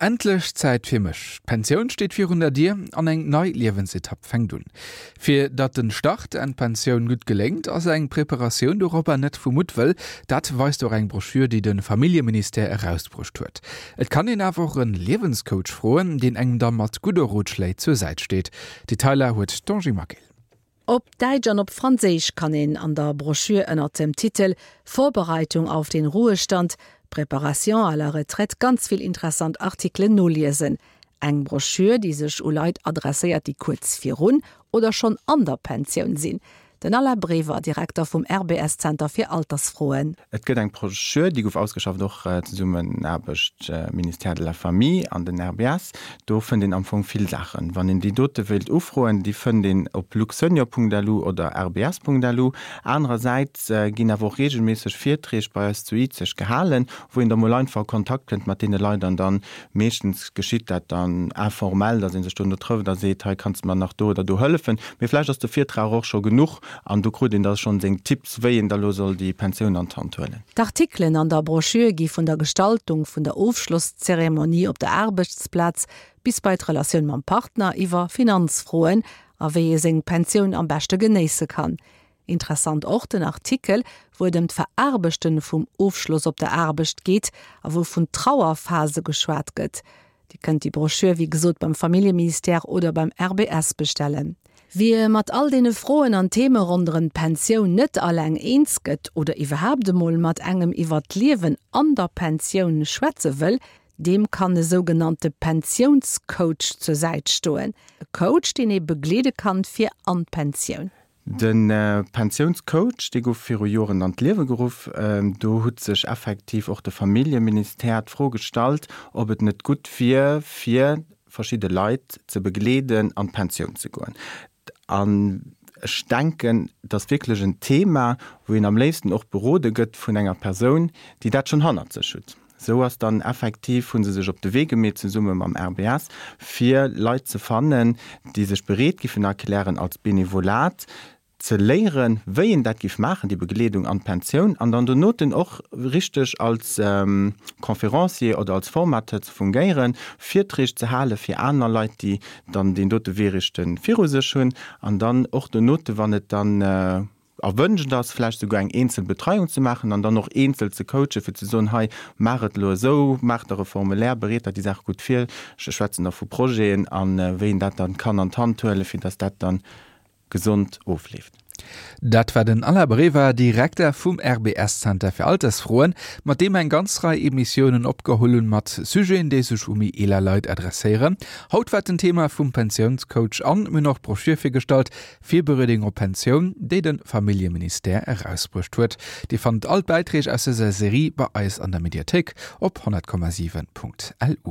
Endlech Zäit fir mech. D'Pensioun steet virun der Dier an eng nei Liewensetapp fänkt un. Fir datt den Start an d'Pensioun gutt geléngt, ass eng Preparatioun doropper net vu Muttwëll. Dat weist och eng Broschür, déi de Familljeministère erausbruecht huet. Et kann een awer och en Liewenscoach froen, deen engem da mat gudde Rotschléi zur Säit steet. Detailer huet d'Angie Maquil. Op Däitsch an op Franséisch kann een an der Broschür ënnert dem Titel Vorbereitung auf den Ruhestand, Préparation à la retraite ganz vill interessant Artikelen noliesen. Eng Broschür, déi sech u Leit adresséiert, déi kuerz virun oder schonn an der Pensioun sinn. Den Alain Brever, Direkter vum RBS-Zenter fir Altersfroen. Et gëtt eng Broschür, déi gouf ausgeschafft och Zesummenaarbecht Ministère de la Famille an den RBS. Do fënnt een am Fong vill Saachen. Wann een déi dote wéilt ufroen, déi fënnt een op luxsenior.lu oder rbs.lu. Anerersäits ginn awer och reegelméisseg Virträg bei eis zu Izeg gehalen, wou een da mol einfach a Kontakt kënnt mat deene Leit an dann meeschtens geschitt dat dann informell, datt ee sech dono trëfft a seet, hei kanns de mer nach do oder do hëllefen. Mee vläicht ass de Virtrag och scho genuch an do krut een da schonn seng Tipps, wéi een da lo soll déi Pensioun an d'Hand huelen. D'Artikelen an der Broschür gi vun der Gestaltung vun der Ofschlosszeremonie op der Aarbechtsplaz bis bei d'Relatioun mam Partner, iwwer Finanzfroen a wéi ee seng Pensioun am beschte genéisse kann. Interessant och den Artikel, wou et ëm d'Veraarbechten vum Ofschloss op der Aarbecht geet a wou vun Trauerphase geschwat gëtt. Dir kënnt déi Broschür wéi gesot beim Familljeministère oder beim RBS bestellen. Wie mat all deene Froen an Theme ronderëm d'Pensioun net alleng eens gëtt oder iwwerhaapt emol mat engem iwwer d'Liewen an der Pensioun schwätze wëll, deem kann e sougenannte Pensiounscoach zur Säit stoen. E Coach, deen ee begleede kann fir an d'Pensioun. De Pensiounscoach, dee gouf viru Joren an d'Liewe geruff. Do hutt sech effektiv och de Familljeministère d'Fro gestallt, ob et net gutt wier, fir verschidde Leit ze begleeden, an d'Pensioun ze goen. An ech denken, et ass wierklech en Thema, wou een am léifsten och berode gëtt vun enger Persoun, déi dat schonn hannert sech hutt. Esou ass dann effektiv, hu se sech op de Wee gemeet zesumme mam RBS, fir Leit ze fannen, déi sech bereet giffen erklären, als Benevolat ze léieren, wéi een dat giff maachen, déi Begleedung an d'Pensioun, an dann donoten och richteg als Conférencier oder als Formateur ze fungéieren, Virträg ze hale fir aner Leit, déi dann deen dote Wee richte viru sech hunn, an dann och donote, wann et dann Erwënscht ass, vläicht souguer eng eenzel Betreiung ze maachen an dann och eenzel ze coachen, fir ze soen, hei, maach et elo esou, maach der e Formulaire, bereet der déi Saach gutt vir. Ech schwätzen da vu Projeten a wéi een dat dann kann an d'Hand huelen, fir dass dat dann gesond ofleeft. Dat war den Alain Brever, Direkter vum RBS-Zenter fir Altersfroen, mat deem eng ganz Rei Emissiounen opgeholl hunn mat Sujeten, déi sech u méi eeler Leit adresséieren. Haut war den Thema vum Pensiounscoach an mir hunn och d'Broschür virgestallt, Virbereedung op Pensioun, déi de Familljeministère erausbruecht huet. Dir fannt all d'Bäiträg aus dëser Serie bei eis an der Mediathéik op 100,7.lu.